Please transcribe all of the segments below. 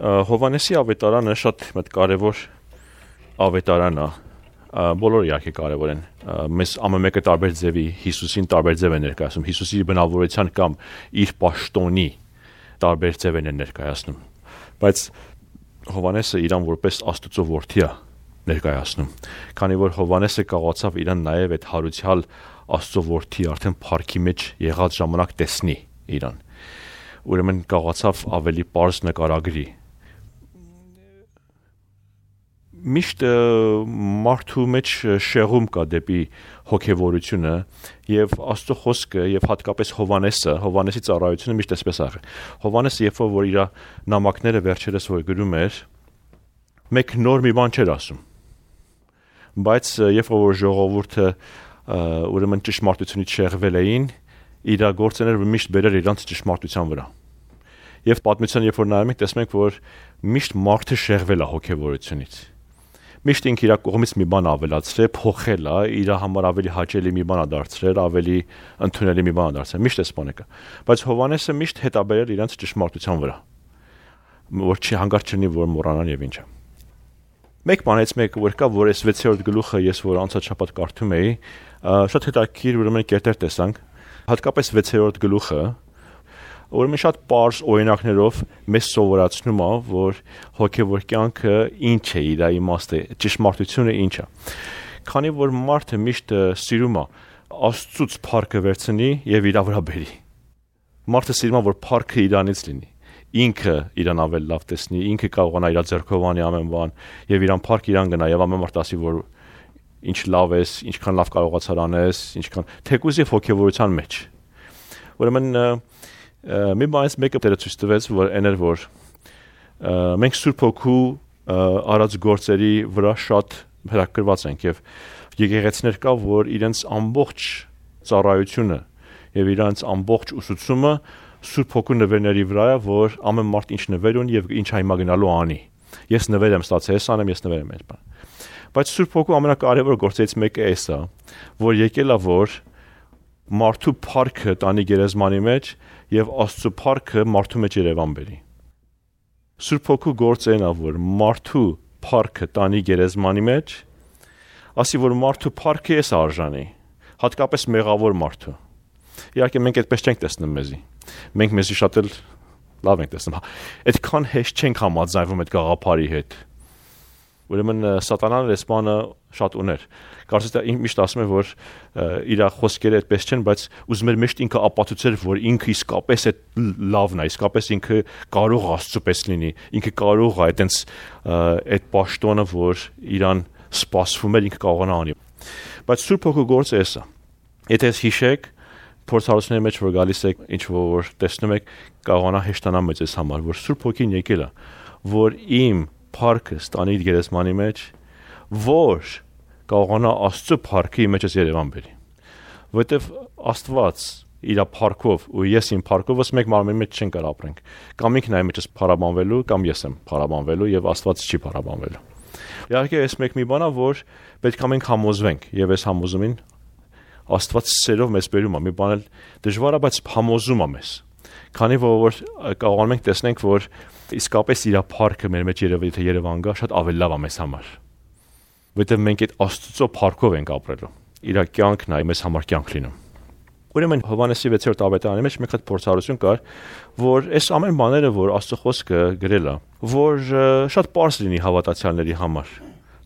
Հովանեսի ավետարանը շատ կարևոր ավետարան է, բոլորը իհարկե կարևոր են, մեզ ամեն մեկը տարբեր ձևի Հիսուսին տարբեր ձև է ներկայացնում, Հիսուսի բնավորության կամ իր պաշտոնի տարբեր ձև են ներկայացնում, բայց Հովանեսը իրան որպես Աստծո որդի է ներկայացնում, քանի որ Հովանեսը կարողացավ իրան նաև այդ հարուցյալ Աստծո որդի արդեն փառքի մեջ եղած ժամանակ տեսնի իրան, ուրեմն կարողացավ ավելի պարզ նկարագրի, միշտ մարդու մեջ շեղում կա դեպի հոգևորությունը եւ Աստծո խոսքը եւ հատկապես Հովանեսի ծառայությունը միշտ այսպես է եղել։ Հովանեսը երբ որ իր նամակները վերջերս որ գրում էր, մեկ նոր մի բան չէր ասում։ Բայց երբ որ ժողովուրդը ուրեմն ճշմարտությունից շեղվել էին, իր գործերները միշտ բերել իրանց ճշմարտության վրա։ Եվ պատմության երբ որ նայում ենք, տեսնում ենք, որ միշտ մարդը շեղվել է հոգևորությունից։ Միշտ ինքը իր կողմից մի բան ավելացրել, փոխել է, իր համար ավելի հաճելի մի բան է դարձրել, ավելի ընդունելի մի բան է դարձրել։ Միշտ էս բանը կա։ Բայց Հովանեսը միշտ հետ է բերել իրանց ճշմարտության վրա, որ չի հանգարց չլինի, որ մոռանան եւ ինչը։ Մեկ բանից մեկը որ կա, որ այս 6-րդ գլուխը ես որ անցած շաբաթ կարդում էի, շատ հետաքրքիր ուրեմն կերտեր տեսանք, հատկապես 6-րդ գլուխը, ուրեմն շատ պարզ օրինակներով մեզ սովորացնում է, որ հոգևոր կյանքը ինչ է, իր իմաստը, ճշմարտությունը ինչ է։ Քանի որ մարդը միշտ սիրում է Աստծուց փառքը վերցնի եւ իր վրա բերի։ Մարդը սիրում է, որ փառքը իրանից լինի։ Ինքը իրան ավելի լավ տեսնի, ինքը կարողանա իր ձեռքով անի ամեն բան եւ իրան փառք իրան գնա եւ ամեն մարդ ասի, որ ինչ լավ ես, ինչքան լավ կարողացար անես, ինչքան թեկուզ եւ հոգեվորության մեջ։ Ուրեմն մի բանից մեկը դերը ցույց տվեց, որ այն էր, որ մենք Սուրբ Հոգու արած գործերի վրա շատ հրակրված ենք եւ եկեղեցիներ կա, որ իրենց ամբողջ ծառայությունը եւ իրենց ամբողջ ուսուցումը Սուրբ Հոգու նվերների վրա է, որ ամեն մարդ ինչ նվեր ունի եւ ինչ հիմա գնալու անի։ Ես նվեր եմ ստացել, ես անեմ, ես նվեր եմ այս բան։ Բայց Սուրբ Հոգու ամենակարևոր գործերից մեկը էս է, որ եկել է, որ մարդու փառքը տանի գերեզմանի մեջ եւ Աստծո փառքը մարդու մեջ Երևան բերի։ Սուրբ Հոգու գործն է, որ մարդու փառքը տանի գերեզմանի մեջ, ասի որ մարդու փառքը էս արժանի, հատկապես մեղավոր մարդու։ Իհարկե մենք այդպես չենք տեսնում մեզի։ Մենք մեզի շատ էլ լավ ենք տեսնում։ Այդքան հեշտ չենք համաձայնվում այդ գաղափարի հետ։ Ուրեմն սատանան այս բանը շատ ուներ։ Կարծես թե միշտ ասում է, որ իր խոսքերը այդպես չեն, բայց ուզում էր միշտ ինքը ապացուցել, որ ինքը իսկապես այդ լավն է, իսկապես ինքը կարող Աստծո պես լինի, ինքը կարող է այտենց այդ պաշտոնը, որ իրան սպասվում էր, ինքը կարողանա անի։ Բայց Սուրբ Հոգու գործը էս է։ Եթե հիշեք փորձառությունների մեջ որ գալիս եք, ինչ որ տեսնում եք, կարողանա հեշտանալ մեծ ես համար, որ Սուրբ Հոգին եկել է, որ իմ փառքը ստանի իր գերեզմանի մեջ, որ կարողանա Աստծո փառքը իմ մեջս Երևան բերի։ Որտեվ Աստված իր փառքով ու ես իմ փառքով մեկ մարմնի մեջ չեն կարող ապրենք։ Կամ ինքն է մեջս փառաբանվելու, կամ ես եմ փառաբանվելու եւ Աստված չի փառաբանվելու։ Իհարկե այս մեկ մի բան է, որ պետք է մենք համոզվենք եւ այս համոզումին Աստված սերով մեզ բերում է, մի բան էլ դժվար է, բայց համոզում է մեզ։ Քանի որ կարողանում ենք տեսնենք, որ իսկապես իր փառքը մեր մեջ Երևան գա, շատ ավելի լավ է մեզ համար։ Որտեղ մենք այդ Աստծո փառքով ենք ապրելու։ Իր կյանքն է մեզ համար կյանք լինում։ Ուրեմն Հովանեսի 6-րդ ավետարանի մեջ մեկ հատ փորձառություն կար, որ այս ամեն բաները, որ Աստծո խոսքը գրել է, որ շատ պարզ լինի հավատացյալների համար։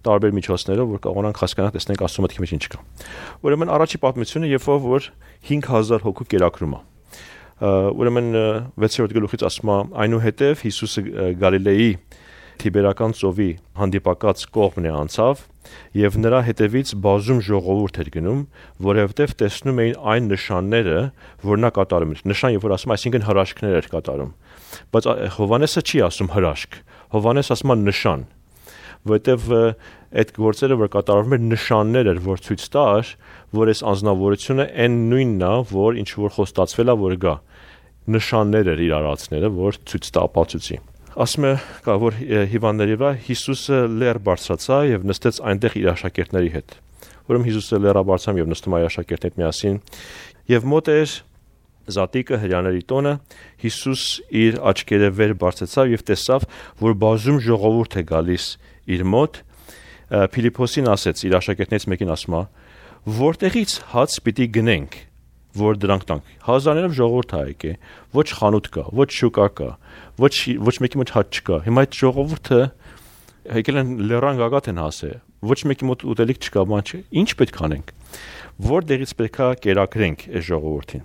Տարբեր միջոցներով, որ կարողանանք հասկանալ, տեսնենք Աստծո մտքի մեջ ինչ կա։ Ուրեմն առաջի պատմությունը, երբ որ 5000 հոգու կերակրում է։ Ուրեմն 6-րդ գլուխից ասում է, այնուհետև Հիսուսը Գալիլեի Թիբերական ծովի հանդիպակաց կողմն է անցավ, եւ նրա հետևից բազում ժողովուրդ էր գնում, որովհետեւ տեսնում էին այն նշանները, որ նա կատարում էր։ Նշան, երբ որ ասում, այսինքն հրաշքներ էր կատարում։ Բայց Հովանեսը չի ասում հրաշք։ Հովանեսը ասում է նշան, որովհետև այդ գործերը որ կատարվում էր նշաններ էր, որ ցույց տար, որ այս անձնավորությունը այն նույնն է, որ ինչ որ խոստացվել է, որ գա։ Նշաններ էր իր արածները, որ ցույց տա ապացուցի։ Ասում է, որ հիվանդների վրա Հիսուսը լեռ բարձրացա եւ նստեց այնտեղ իր աշակերտների հետ։ Ուրեմն Հիսուսը լեռը բարձրացավ եւ նստում իր աշակերտների հետ միասին եւ մոտ էր Զատիկը հրյաների տոնը Հիսուս իր աչքերը վեր բարձեցավ եւ տեսավ, որ բազում ժողովուրդ է գալիս իր մոտ։ Փիլիփոսին ասեց իր աշակերտներից մեկին ասում է. «Որտեղից հաց պիտի գնենք, որ դրանք տանք»։ Հազարներով ժողովուրդ է եկե, ոչ խանութ կա, ոչ շուկա կա, ոչ մեկի մոտ հաց չկա։ Հիմա այդ ժողովուրդը եկել են լեռան գագաթ են հասել, ոչ մեկի մոտ ուտելիք չկա, բան չէ։ Ինչ պետք անենք։ Որտեղից պետքա կերակրենք այս ժողովրդին։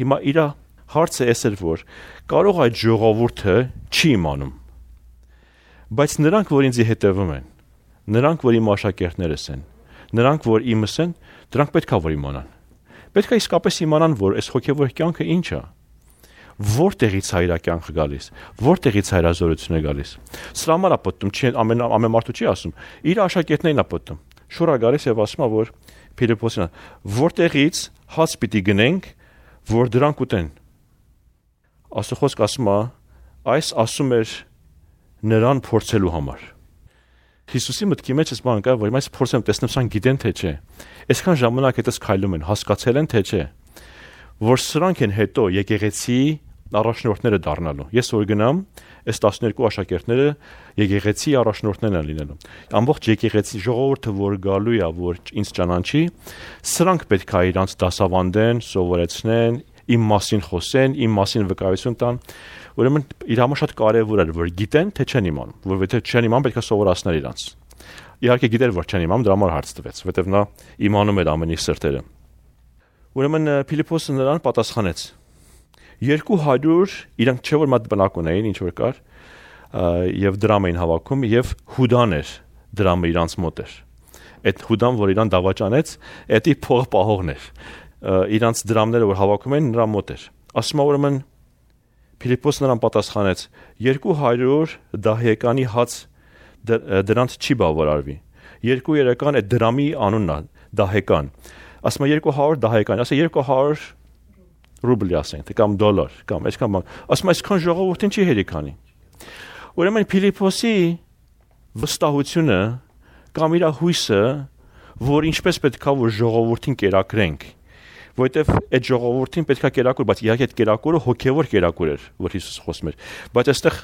Հիմա իր հարցը էս էր, որ կարող այդ ժողովուրդը չի իմանում, բայց նրանք, որ ինձ հետևում են, նրանք, որ իմ աշակերտներս են, նրանք, որ իմս են, դրանք պետքա որ իմանան։ Պետքա իսկապես իմանան, որ այս հոգևոր կյանքը ինչ է։ Որտեղից է իր կյանքը գալիս, որտեղից է իր զորությունը գալիս։ Սրա համար է պատմում, չի ամեն մարդու չի ասում, իր աշակերտներն է պատմում։ Շուռա գալիս եւ ասում է, որ Փիլիփոսին, որտեղից հաց պիտի գնենք, որ դրանք ուտեն։ Աստծո ասում է, այս ասում էր նրան փորձելու համար։ Հիսուսի մտքի մեջ էս բան կա, որ այս փորձեմ տեսնեմ սան գիտեն թե չէ։ Այսքան ժամանակ հետս քայլում են, հասկացել են թե չէ, որ սրանք են հետո եկեղեցի առաջնորդները դառնալու։ Ես որ գնամ, այս 12 աշակերտները եկեղեցի առաջնորդներն են լինելու։ Ամբողջ եկեղեցի ժողովուրդը, որ գալու է, որ ինձ ճանաչի, սրանք պետք է իրանց դասավանդեն, սովորեցնեն, իմ մասին խոսեն, իմ մասին վկայություն տան։ Ուրեմն իր համար շատ կարևոր է, որ գիտեն, թե չեն իմանում, որովհետև չեն իմանում, պետք է սովորացնել իրանց։ Իհարկե գիտեր, որ չեն իմանում, դրա համար հարց տվեց, որովհետև նա իմանում էր ամենի սրտերը։ Ուրեմն Փիլիփոսը նրան պատասխանեց. 200 իրանք չէ որ մատ բնակ ունեին, ինչ որ կար, եւ դրամ էին հավաքում, եւ Հուդան էր դրամը իրանց մոտ էր։ Այդ Հուդան, որ իրան դավաճանեց, էդի փող պահողն էր։ Իրանց դրամները, որ հավաքում էին, նրա մոտ էր։ Ասում է ուրեմն Փիլիփոսը նրան պատասխանեց. 200 դահեկանի հաց դրանց չի բավարարվի։ 2 այդ դրամի անունն է, դահեկան։ Ասում է 200 դահեկան, ասա 200 ռուբլի ասենք, կամ դոլար, կամ այսքան բան։ Ասում է այսքան ժողովրդին չի հերիքանի։ Ուրեմն Փիլիփոսի վստահությունը կամ իր հույսը, որ ինչպես պետքա որ ժողովրդին կերակրենք, որովհետև այդ ժողովրդին պետքա կերակուր, բայց իհարկե այդ կերակուրը հոգևոր կերակուր էր, որ Հիսուս խոսում էր, բայց այստեղ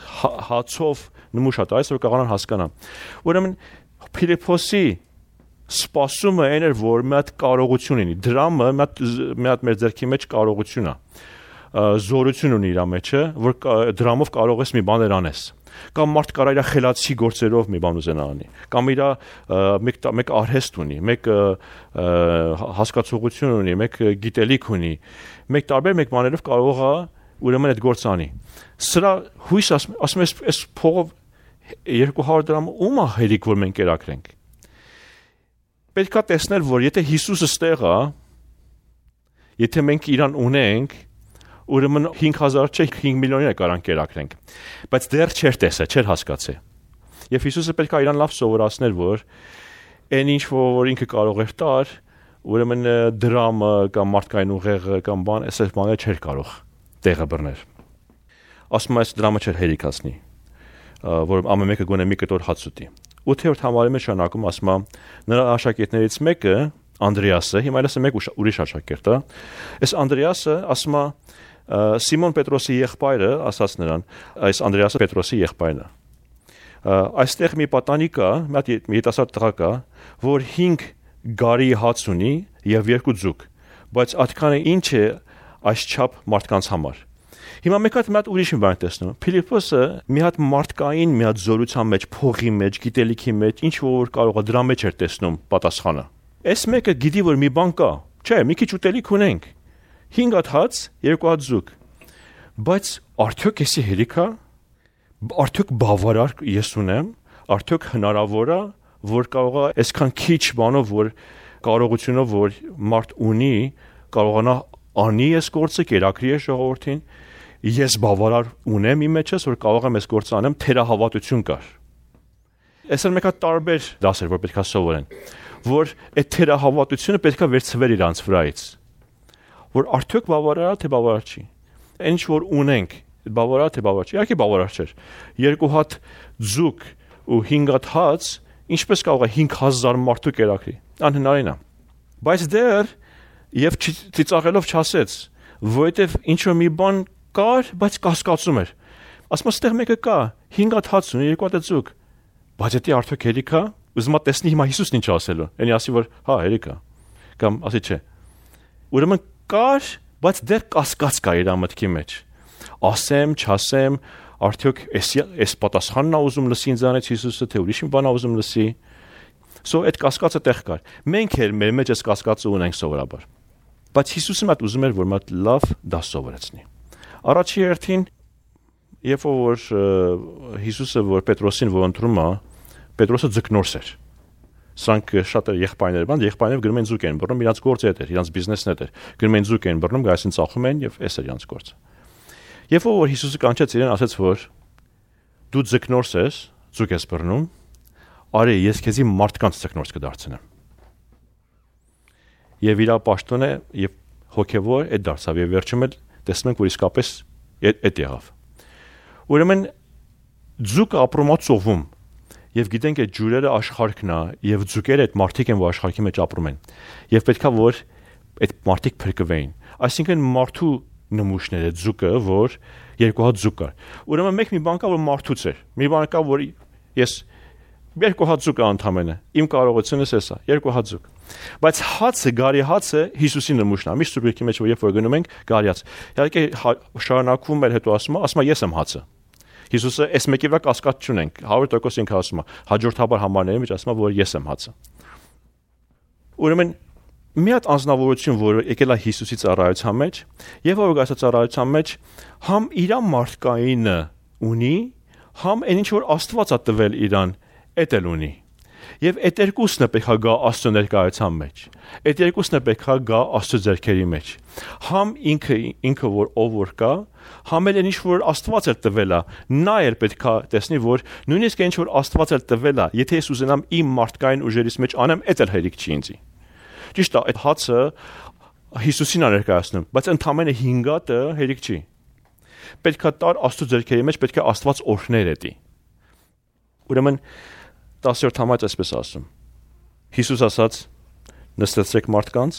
հացով նմուշ է տալիս, որ կարողանան հասկանալ։ Ուրեմն Փիլիփոսի սպասումը այն էր, որ մի հատ կարողություն ունի, դրամը մի հատ մեր ձեռքի մեջ կարողություն է, զորություն ունի իր մեջը, որ դրամով կարող ես մի բաներ անես, կամ մարդ կարա իր խելացի գործերով մի բան ուզենա անի, կամ իր մեկ արհեստ ունի, մեկ հասկացողություն ունի, մեկ գիտելիք ունի, մեկ տարբեր մեկ բաներով կարող է ուրեմն այդ գործը անի։ Սրա հույս ասում ես, այս փողով 200 դրամ ում է հերիք, որ մենք կերակրենք։ Պետք է տեսնել, որ եթե Հիսուսը ստեղ է, եթե մենք իրան ունենք, ուրեմն 5000 չէ, 5 միլիոնի կարան կերակրենք։ Բայց դեռ չէր տեսել, չէր հասկացել։ Եվ Հիսուսը պետք է իրան լավ սովորացներ, որ այն ինչ որ ինքը կարող էր տար, ուրեմն դրամը կամ մարդկային ուղեղը կամ բան, այսպես բաները չէր կարող տեղը բռնել։ Ասում այս դրամը չէր հերիքացնի, որ ամեն մեկը գոնե մի կտոր հաց ուտի։ 8-րդ համարի մեջ շարունակում ասում է նրա աշակերտներից մեկը Անդրեասը, հիմա այլս մեկ ուրիշ աշակերտ է։ Այս Անդրեասը ասում է Սիմոն Պետրոսի եղբայրը, ասաց նրան, այս Անդրեասը Պետրոսի եղբայրն է։ Այստեղ մի պատանի կա, մի երիտասարդ տղա կա, որ 5 գարի հաց ունի եւ 2 ձուկ, բայց այդքանը ինչ է այսչափ մարդկանց համար։ Հիմա մեկ հատ ուրիշ մի բան տեսնում։ Փիլիփոսը մի հատ մարդկային, մի հատ զորության մեջ, փողի մեջ, գիտելիքի մեջ, ինչ որ կարող է դրա մեջ էր տեսնում պատասխանը։ Այս մեկը գիտի որ մի բան կա, չէ, մի քիչ ուտելիք ունենք։ 5 հատ հաց, 2 հատ ձուկ։ Բայց արդյոք էսի հերիք է։ Արդյոք բավարար ես ունեմ, արդյոք հնարավոր է, որ կարող է այսքան քիչ բանով, որ կարողությունով, որ մարդ ունի, կարողանա անի այս գործը, կերակրի այս ժողովրդին։ Ես բավարար ունեմ իմ մեջս, որ կարող եմ այս գործը անեմ, թերահավատություն կար։ Այսօր մեկ հատ տարբեր դասեր, որ պետք է սովորեն, որ այդ թերահավատությունը պետք է վերցվեր իրանց վրայից, որ արդյոք բավարար է, թե բավարար չի։ Ինչ որ ունենք, բավարար թե բավարար չի, իհարկե բավարար չէր։ 2 հատ ձուկ ու 5 հատ հաց, ինչպես կարող է 5000 մարդու կերակրի։ Անհնարին է։ Բայց դեռ եւ ծիծաղելով չասեց, որովհետև ինչ որ մի բան կար, բայց կասկածում էր։ Ասում ստեղ մեկը կա, 5 հատ հաց ունի, 2 հատ ձուկ։ Բայց դա արդյոք հերիք է։ Ուզում եմ տեսնի հիմա Հիսուսն ինչ ասելու։ Էնի ասի որ հա հերիք է։ Կամ ասի չէ։ Ուրեմն կար, բայց դեռ կասկած կա իր մտքի մեջ։ Ասեմ, չասեմ, արդյոք էս պատասխանն է ուզում լսի ինձանից Հիսուսը, թե ուրիշ մի բան է ուզում լսի։ So այդ կասկածը տեղ կար։ Մենք էլ մեր մեջ այս կասկածը ունենք սովորաբար։ Բայց Հիսուսը մատ ուզում էր, որ մատ լավ դաս սովորեցնի։ Առաջի հերթին, երբ որ Հիսուսը որ Պետրոսին ողընտրում է, Պետրոսը ձկնորս էր։ Սրանք շատ եղբայրներ բան, եղբայրները գնում են ձուկ են բռնում, իրաց գործը էր, իրաց բիզնեսն էր։ Գնում են ձուկ են բռնում, գայսին ծախում են եւ էս էր իրաց գործը։ Երբ որ Հիսուսը կանչեց իրեն, ասաց որ դու ձկնորս ես, ձուկ ես բռնում, արի ես քեզի մարդկանց ձկնորս կդարձնեմ։ Եվ իր պաշտոնը եւ հոգեվոր այդ դարձավ եւ վերջում էլ տեսնում ենք որ իսկապես այդ եղավ։ Ուրեմն ձուկը ապրում է ծովում եւ գիտենք այդ ջուրերը աշխարհքն է եւ ձուկերը այդ մարդիկ են որ աշխարհքի մեջ ապրում են եւ պետքա որ այդ մարդիկ փրկվեին այսինքն մարդու նմուշները ձուկը որ երկու հատ ձուկ կար ուրեմն մեկ մի բան կա որ մարդուց էր մի բան կա որ ես երկու հատ ձուկ անդամենը իմ կարողությունս էսա երկու հատ ձուկ բայց հացը գարի հացը Հիսուսի նմուշն է միշտ սուրբեկի մեջ որ երբ որ գնում ենք գարի հաց իհարկե շարունակվում էր հետո ասում ես եմ հացը Հիսուսը այս մեկի վրա կասկած չունենք 100% ինքը ասում է հաջորդաբար համարների մեջ ասում է որ ես եմ հացը ուրեմն մի հատ անձնավորություն որ եկել է Հիսուսի ծառայության մեջ եւ որ գասա ծառայության մեջ համ իր մարդկայինը ունի համ այն ինչ որ Աստված է տվել իրան էդ էլ ունի եւ այդ երկուսն է պետք է գա Աստծո ներկայության մեջ այդ երկուսն է պետք է գա Աստծո ձեռքերի մեջ համ ինքը որ ով որ կա համ էլ ինչ որ Աստված էր տվել է նա էր պետք է տեսնի որ նույնիսկ ինչ որ Աստված էր տվել է եթե ես ուզենամ իմ մարդկային ուժերից մեջ անեմ այդ էլ հերիք չի ինձի ճիշտ է այդ հացը Հիսուսին է ներկայացնում բայց ընդամենը 5 հատը հերիք չի պետք է տար Աստծո ձեռքերի մեջ պետք է Աստված օրհներ էտի ուրեմն 10-րդ համայց այսպես ասում Հիսուս ասաց նստեցրեք մարդկանց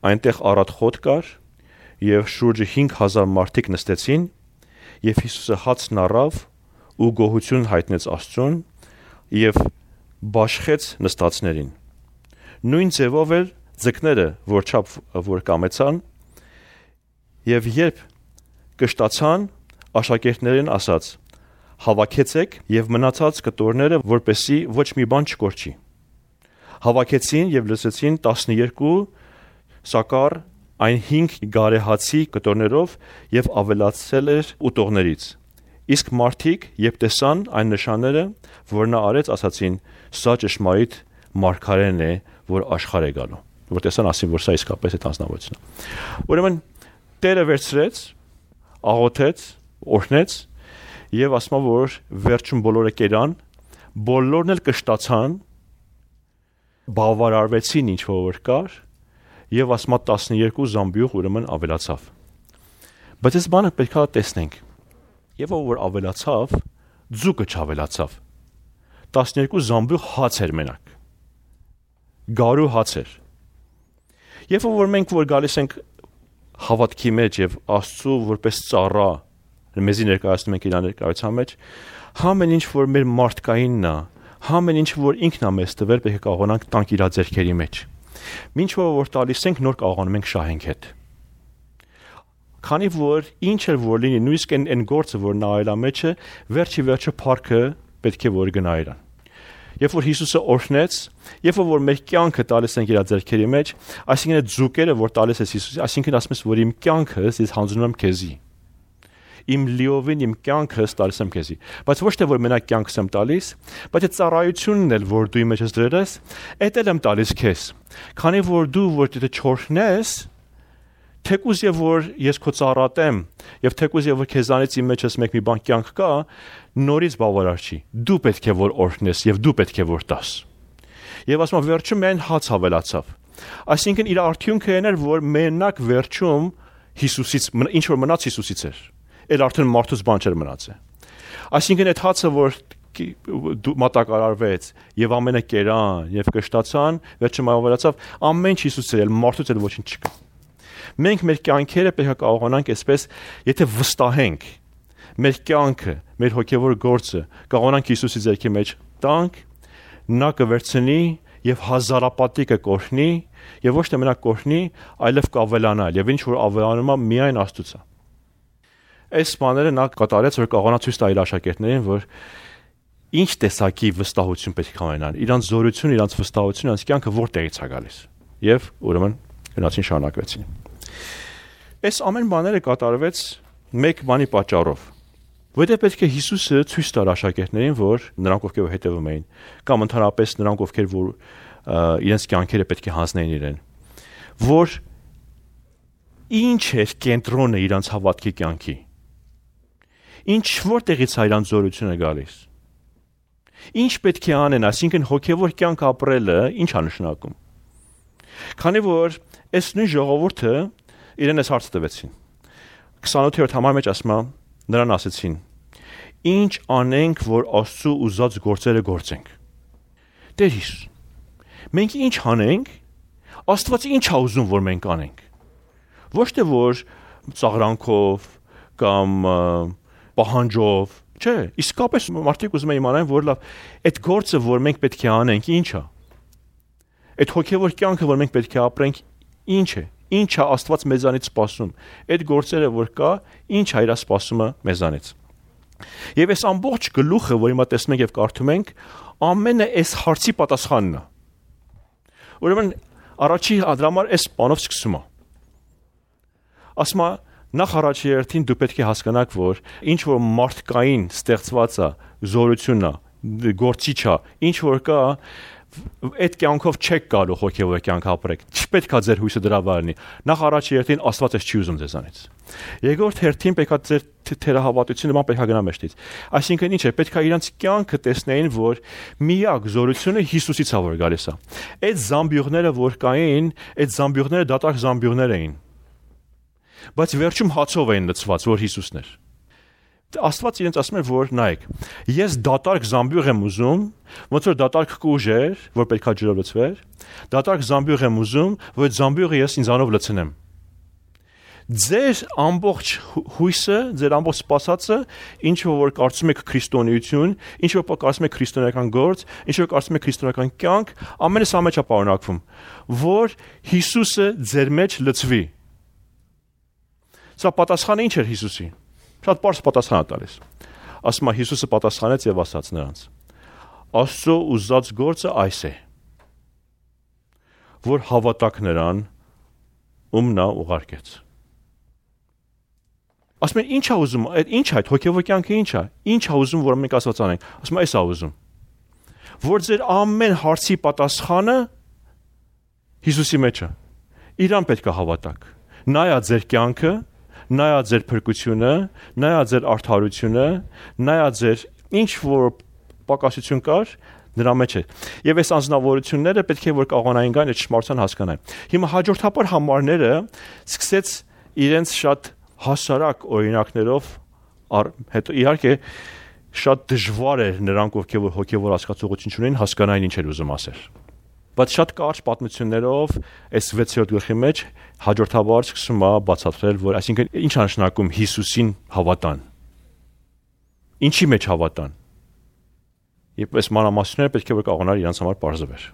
այնտեղ առատ խոտ կար եւ շուրջը 5000 մարդիկ նստեցին եւ Հիսուսը հացն առավ ու գոհություն հայտնեց Աստծուն եւ բաշխեց նստածներին նույն ձևով էլ ձկները որ կամեցան եւ երբ կշտացան աշակերտներին ասաց հավաքեցեք եւ մնացած կտորները որպեսի ոչ մի բան չկորչի հավաքեցին եւ լսեցին 12 սակար այն 5 գարեհացի կտորներով եւ ավելացել էր ուտողներից իսկ մարդիկ երբ տեսան այն նշանները որ նա արեց ասացին սա ճշմարիտ մարգարեն է որ աշխարհ է գալու որ տեսան ասին որ սա իսկապես է անձնավորությունը ուրեմն Տերը վերցրեց աղոթեց օրհնեց եւ ասում որ վերջում բոլորը կերան բոլորն էլ կշտացան բավարարվեցին ինչ որ կար եւ ասում 12 զամբյուղ ուրեմն ավելացավ բայց այս բանը պետք է տեսնենք եւ որ ավելացավ ձուկը չավելացավ 12 զամբյուղ հաց էր մենակ գարու հաց էր եւ որ մենք որ գալիս ենք հավատքի մեջ եւ Աստծո որպես ծառա մեզի ներկայացնում ենք իր ներկայության մեջ համ այն ինչ որ մեր մարդկայինն է համ այն ինչ որ ինքն է մեզ տվել պետք է կարողանանք տանք իր ձեռքերի մեջ ինչ որ տալիս ենք նոր կարողանում ենք շահենք հետ քանի որ ինչ էլ որ լինի նույնիսկ այն գործը որ նա այլա մեջը վերջը փառքը պետք է որ գնա իրան երբ որ Հիսուսը օրհնեց երբ որ մեր կյանքը տալիս ենք իր ձեռքերի մեջ այսինքն այդ ձուկերը որ տալիս ես Հիսուսի այսինքն ասում ես որ իմ կյանքը ես հանձնում եմ քեզի իմ լիովին իմ կյանքս տալիս եմ քեզի բայց ոչ թե որ մենակ կյանքս եմ տալիս բայց այդ ծառայությունն էլ որ դու իմ մեջ ես դրես այդ էլ եմ տալիս քեզ քանի որ դու որ դու չորհնես թեկուզ եւ որ ես քո ծառատեմ եւ թեկուզ եւ որ քեզանից իմ մեջ ես մեկ մի բան կյանք կա նորից բավարար չի դու պետք է որ օրհնես եւ դու պետք է որ տաս եւ ասում վերջում այն հաց հավելացավ այսինքն իր արդյունքը այն էր որ մենակ վերջում Հիսուսից ինչ որ մնաց Հիսուսից էր Էլ արդեն մարդուց բան չէր մնացել։ Այսինքն այդ հացը որ մատակարարվեց եւ ամենը կերան եւ կշտացան, վերջում ավելացավ ամեն ինչ Հիսուսը էլ մարդուց էլ ոչինչ չկա։ Մենք մեր կյանքերը պետք է կարողանանք այսպես, եթե վստահենք մեր կյանքը, մեր հոգևոր գործը, կարողանանք Հիսուսի ձեռքի մեջ տանք, նա կվերցնի եւ հազարապատի կկօրհնի եւ ոչ թե մենակ կօրհնի, այլև կավելանա եւ ինչ որ ավելանում է միայն Աստծուց է։ Այս բաները նա կատարեց, որ կարողանա ցույց տա իր աշակերտներին, որ ինչ տեսակի վստահություն պետք է ունենան, իրանց զորություն, իրանց վստահություն, իրանց կյանքը որտեղից է գալիս։ Եվ ուրեմն գնացին շարունակվեցին։ Այս ամեն բաները կատարվեց մեկ բանի պատճառով։ Որտեղ պետք է Հիսուսը ցույց տար աշակերտներին, որ նրանք ովքեր հետևում էին, կամ ընդհանրապես նրանք ովքեր որ իրենց կյանքերը պետք է հանձնեին իրեն, որ ինչ էր կենտրոնը իրանց հավատքի կյանքի։ Ինչ որտեղից է իրանց զորությունը գալիս։ Ինչ պետք է անեն, այսինքն հոգևոր կյանք ապրելը ինչ է նշանակում։ Քանի որ այս նույն ժողովուրդը իրեն այս հարցը տվեցին։ 28-րդ համարի մեջ ասում է, նրան ասեցին. Ինչ անենք, որ Աստծո ուզած գործերը գործենք։ Տեր Հիսուս, մենք ինչ անենք, Աստված ինչ է ուզում, որ մենք անենք։ Ոչ թե որ ծաղրանքով կամ պահանջով, չէ, իսկապես մարդիկ ուզում են իմանալ, որ լավ, այդ գործը, որ մենք պետք է անենք, ինչ է։ Այդ հոգևոր կյանքը, որ մենք պետք է ապրենք, ինչ է։ Ինչ է Աստված մեզանից սպասում։ Այդ գործերը, որ կա, ինչ է իր սպասումը մեզանից։ Եվ այս ամբողջ գլուխը, որ հիմա տեսնում ենք եւ կարդում ենք, ամենը այս հարցի պատասխանն է։ Ուրեմն առաջի դրամար այս բանով սկսում է։ Ասում է, նախ առաջի երթին դու պետք է հասկանաք, որ ինչ որ մարդկային ստեղծված է, զորությունն է, գործիչ է, ինչ որ կա, այդ կյանքով չեք կարող հոգևոր կյանք ապրեք։ Չպետք է ձեր հույսը դրա վրա լինի։ Նախ առաջի երթին Աստված էս չի ուզում ձեզանից։ Երկրորդ հերթին պետք է ձեր թերահավատությունը ման պետք է գնա մեջտից։ Այսինքն ինչ է, պետք է իրանց կյանքը տեսնեին, որ միակ զորությունը Հիսուսից է որ գալիս է։ Այդ զամբյուղները որ կային, այդ զամբյուղները դատարկ զամբյուղներ էին։ Բայց վերջում հացով էին լցված, որ Հիսուսն էր։ Աստված իրենց ասում է, որ նայեք, ես դատարկ զամբյուղ եմ ուզում, ոնց որ դատարկ կուժ էր, որ պետք է ջրով լցվեր, դատարկ զամբյուղ եմ ուզում, որ այդ զամբյուղը ես ինձանով լցնեմ։ Ձեր ամբողջ հույսը, ձեր ամբողջ սպասածը, ինչ որ կարծում եք քրիստոնեություն, ինչ որ կարծում եք քրիստոնեական գործ, ինչ որ կարծում եք քրիստոնեական կյանք, ամենը սա մեջ է պարունակվում, որ Հիսուսը ձեր մեջ լցվի։ Սա պատասխանը ինչ էր Հիսուսի։ Շատ պարզ պատասխան է տալիս։ Ասում է Հիսուսը պատասխանեց եւ ասաց նրանց. Աստծո ուզած գործը այս է, որ հավատաք նրան, ում նա ուղարկեց։ Ասում են ինչ է ուզում, ինչ է այդ հոգևոր կյանքը ինչ է։ Ինչ է ուզում, որ մենք Աստված անենք։ Ասում է այս է ուզում։ Որ ձեր ամեն հարցի պատասխանը Հիսուսի մեջ է։ Իրան պետք է հավատաք։ Նայա ձեր կյանքը, նայա ձեր փրկությունը, նայա ձեր արդարությունը, նայա ձեր ինչ որ պակասություն կար, նրա մեջ է։ Եվ այս անձնավորությունները պետք է որ կարողանային գան այդ ճշմարտության հասկանալ։ Հիմա հաջորդաբար համարները սկսեց իրենց շատ հասարակ օրինակներով, հետո իհարկե շատ դժվար էր նրանք ովքեր հոգևոր հասկացողություն ունեն հասկանային ինչ էր ուզում ասել։ Բայց շատ կարճ պատմություններով այս 6-րդ գլխի մեջ հաջորդաբար սկսում է բացատրել, որ այսինքն ինչ է նշանակում Հիսուսին հավատան։ Ինչի մեջ հավատան։ Եվ այս մանրամասները պետք է որ կարողանար իրանց համար բարձրվել։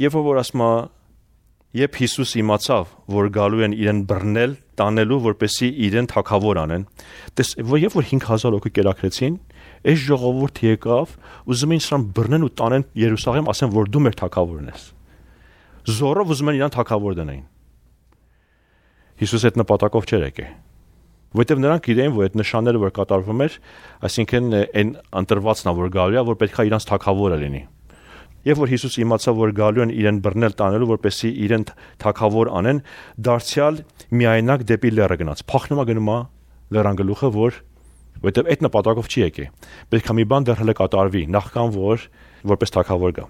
Եվ որ ասում է, երբ Հիսուս իմացավ, որ գալու են իրեն բռնել, տանելու, որպեսզի իրեն թագավոր անեն, երբ որ 5000 հոգի կերակրեցին, այս ժողովուրդը եկավ, ուզում էին նրան բռնեն ու տանեն Երուսաղեմ, ասեն, որ դու մեր թագավորն ես։ Զորով ուզում են իրան թագավոր դնեին։ Հիսուս այդ նպատակով չէր եկել։ Որտեւ նրանք գիտեին, որ այդ նշանները որ կատարվում էր, այսինքն այն ընտրվածն է, որ գալու է, որ պետք է իրանց թագավորը լինի։ Եվ որ Հիսուս իմացավ, որ գալու են իրեն բռնել տանելու, որպեսզի իրեն թագավոր անեն, դարձյալ միայնակ դեպի լեռը գնաց։ Փախնում է գնում է լեռան գլուխը, որտեւ այդ նպատակով չի եկել։ Պետք է մի բան դեռ հələ կատարվի, նախքան որպես թագավոր գա։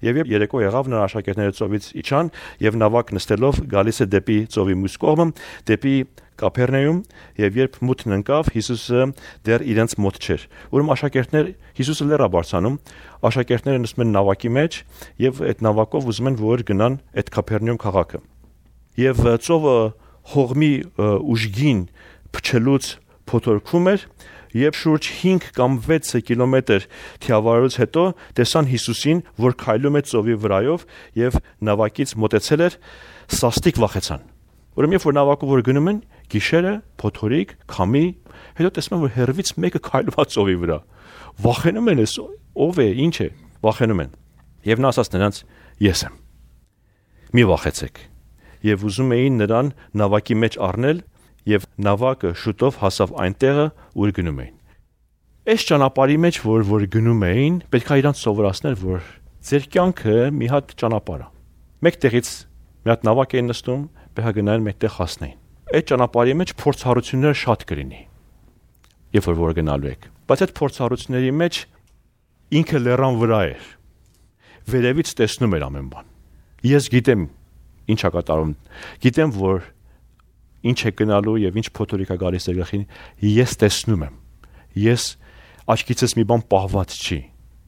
Եվ երեկո եղավ նրա աշակերտները ծովից իջան եւ նավակ նստելով գալիս է դեպի ծովի մյուս կողմը, դեպի Կափեռնեում, եւ երբ մութն ընկավ, Հիսուսը դեռ իրենց մոտ չէր։ Ուրեմն աշակերտներ Հիսուսը լեռա բարձանում, աշակերտները նստում են նավակի մեջ եւ այդ նավակով ուզում են որ գնան այդ Կափեռնեում քաղաքը։ եւ ծովը հողմի ուժգին փչելուց փոթորքում էր, եւ շուրջ 5 կամ 6 կիլոմետր թիավարելուց հետո տեսան Հիսուսին, որ քայլում է ծովի վրայով եւ նավակից մոտեցել էր, սաստիկ վախեցան։ Ուրեմն երբ որ նավակով որ գնում են, գիշերը փոթորիկ, քամի, հետո տեսնում են, որ հեռվից մեկը քայլում է ծովի վրա։ Վախենում են, ով է, ինչ է, վախենում են։ Եվ նա ասաց նրանց. ես եմ։ Մի վախեցեք։ Եվ ուզում էին նրան նավակի մեջ առնել, եւ նավակը շուտով հասավ այնտեղը, ուր գնում էին։ Այս ճանապարհի մեջ, որ գնում էին, պետք է իրանց սովորացնել, որ ձեր կյանքը մի հատ ճանապարհ է։ Մեկ տեղից մի հատ նավակ էին նստում, պետք է գնային մեկտեղ հասնեին։ Այդ ճանապարհի մեջ փորձառությունները շատ կլինի, երբ որ գնալու եք։ Բայց այդ փորձառությունների մեջ ինքը լեռան վրա էր։ Վերևից տեսնում էր ամեն բան։ Ես գիտեմ ինչ է կատարում, գիտեմ, որ ինչ է գնալու եւ ինչ փոթորիկ է գալիս երախին, ես տեսնում եմ։ Ես աչքիցս մի բան պահված չի։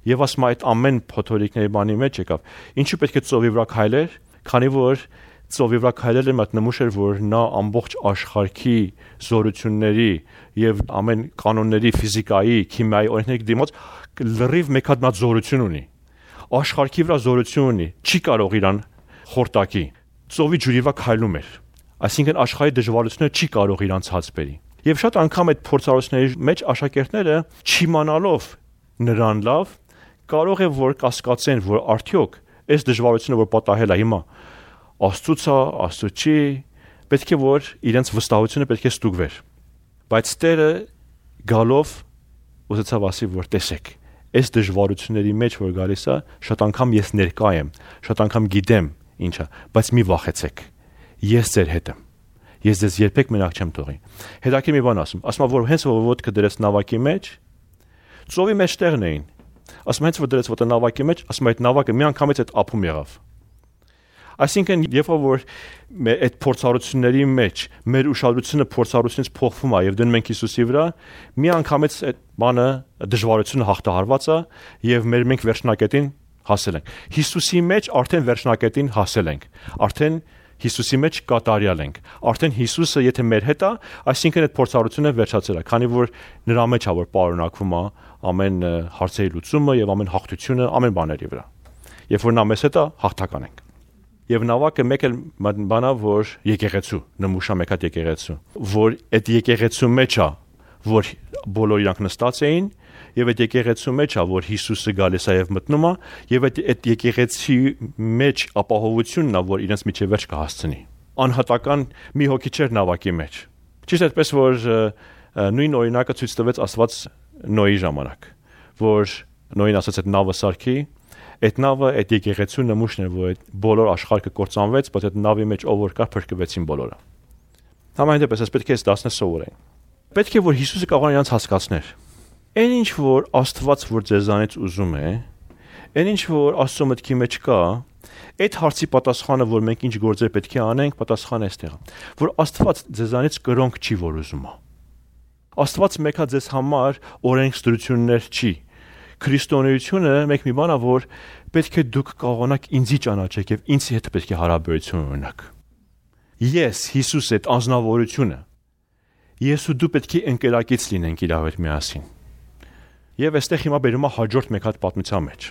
Եվ ասում այդ ամեն փոթորիկների բանի մեջ եկավ։ Ինչու պետք է ծովի վրա քայլեր, քանի որ ծովի վրա քայլելը մատ նմուշ էր, որ նա ամբողջ աշխարհի զորությունների եւ ամեն կանոնների, ֆիզիկայի, քիմիայի օրենքների դիմաց լրիվ մեկ հատ նա զորություն ունի։ Աշխարհի վրա զորություն ունի, չի կարող իրան խորտակի։ Ծովի ջուրի վրա քայլում էր։ Այսինքն աշխարհի դժվարությունները չի կարող իրանց հաց բերի։ Եվ շատ անգամ այդ փորձառությունների մեջ աշակերտները չիմանալով նրան լավ կարող է որ կասկածեն, որ արդյոք այս դժվարությունը որ պատահել է հիմա Աստծուց է, Աստծո չի, պետք է որ իրենց վստահությունը պետք է ստուգվեր։ Բայց Տերը գալով ուզեցավ ասի, որ տեսեք, այս դժվարությունների մեջ որ գալիս է, շատ անգամ ես ներկա եմ, շատ անգամ գիտեմ ինչա, բայց մի վախեցեք։ Ես ձեր հետ եմ։ Ես ձեզ երբեք մենակ չեմ թողի։ Հետաքրքիր մի բան ասում, որ հենց որ ոտքը դրեց նավակի մեջ, ծովի մեջ տեղն էին։ Ասում հենց որ դրեց ոտը նավակի մեջ, ասում այդ նավակը մի անգամից այդ ափում եղավ։ Այսինքն երբ որ այդ փորձառությունների մեջ մեր ուշադրությունը փորձառությունից փոխվում է եւ դնում ենք Հիսուսի վրա, մի անգամից այդ բանը դժվարությունը հաղթահարված է եւ մենք վերջնակետին հասել ենք։ Հիսուսի մեջ արդեն վերջնակետին հասել ենք։ Արդեն Հիսուսի մեջ կատարյալ ենք։ Արդեն Հիսուսը եթե մեր հետ է, այսինքն այդ փորձառությունը վերջացել է, քանի որ նրա մեջ է որ պարունակվում է ամեն հարցերի լուծումը եւ ամեն հաղթությունը ամեն բաների վրա։ Երբ որ նա մեզ հետ է, հաղթական ենք։ Եվ նավակը մեկ էլ բանա, որ եկեղեցու, նմուշա մեկ հատ եկեղեցու, որ այդ եկեղեցու մեջ է, որ բոլոր իրանք նստած էին, եւ այդ եկեղեցու մեջ է, որ Հիսուսը գալիս է եւ մտնում է, եւ այդ եկեղեցի մեջ ապահովությունն է, որ իրենց միջև վերջ կհասցնի։ Անհատական մի հոգի չէր նավակի մեջ։ Ճիշտ այդպես որ նույն օրինակը ցույց տվեց Աստված Նոյի ժամանակ, որ Նոյին ասաց այդ նավը սարքի, այդ նավը այդ եկեղեցու նմուշն է, որ այդ բոլոր աշխարհը կործանվեց, բայց այդ նավի մեջ ով որ կա փրկվեցին բոլորը։ Համայնպես այս պետք է դասնը սովորեն։ Պետք է որ Հիսուսը կարող է իրանց հասկացներ։ Այն ինչ որ Աստված որ ձեզանից ուզում է, այն ինչ որ Աստծո մտքի մեջ կա, այդ հարցի պատասխանը որ մենք ինչ գործեր պետք է անենք, պատասխանը էստեղ է, որ Աստված ձեզանից կրոնք չի որ ուզում է։ Աստված մեկա ձեզ համար օրենքստրություններ չի։ Քրիստոնեությունը մեկ մի բան է, որ պետք է դուք կարողանաք ինձի ճանաչեք եւ ինձ հետ պետք է հարաբերություն ունենաք։ Ես Հիսուս այդ անznավորությունը ես ու դու պետք է ընկերակից լինենք իրար հետ միասին։ Եվ այստեղ հիմա բերում է հաջորդ մեկ հատ պատմության մեջ։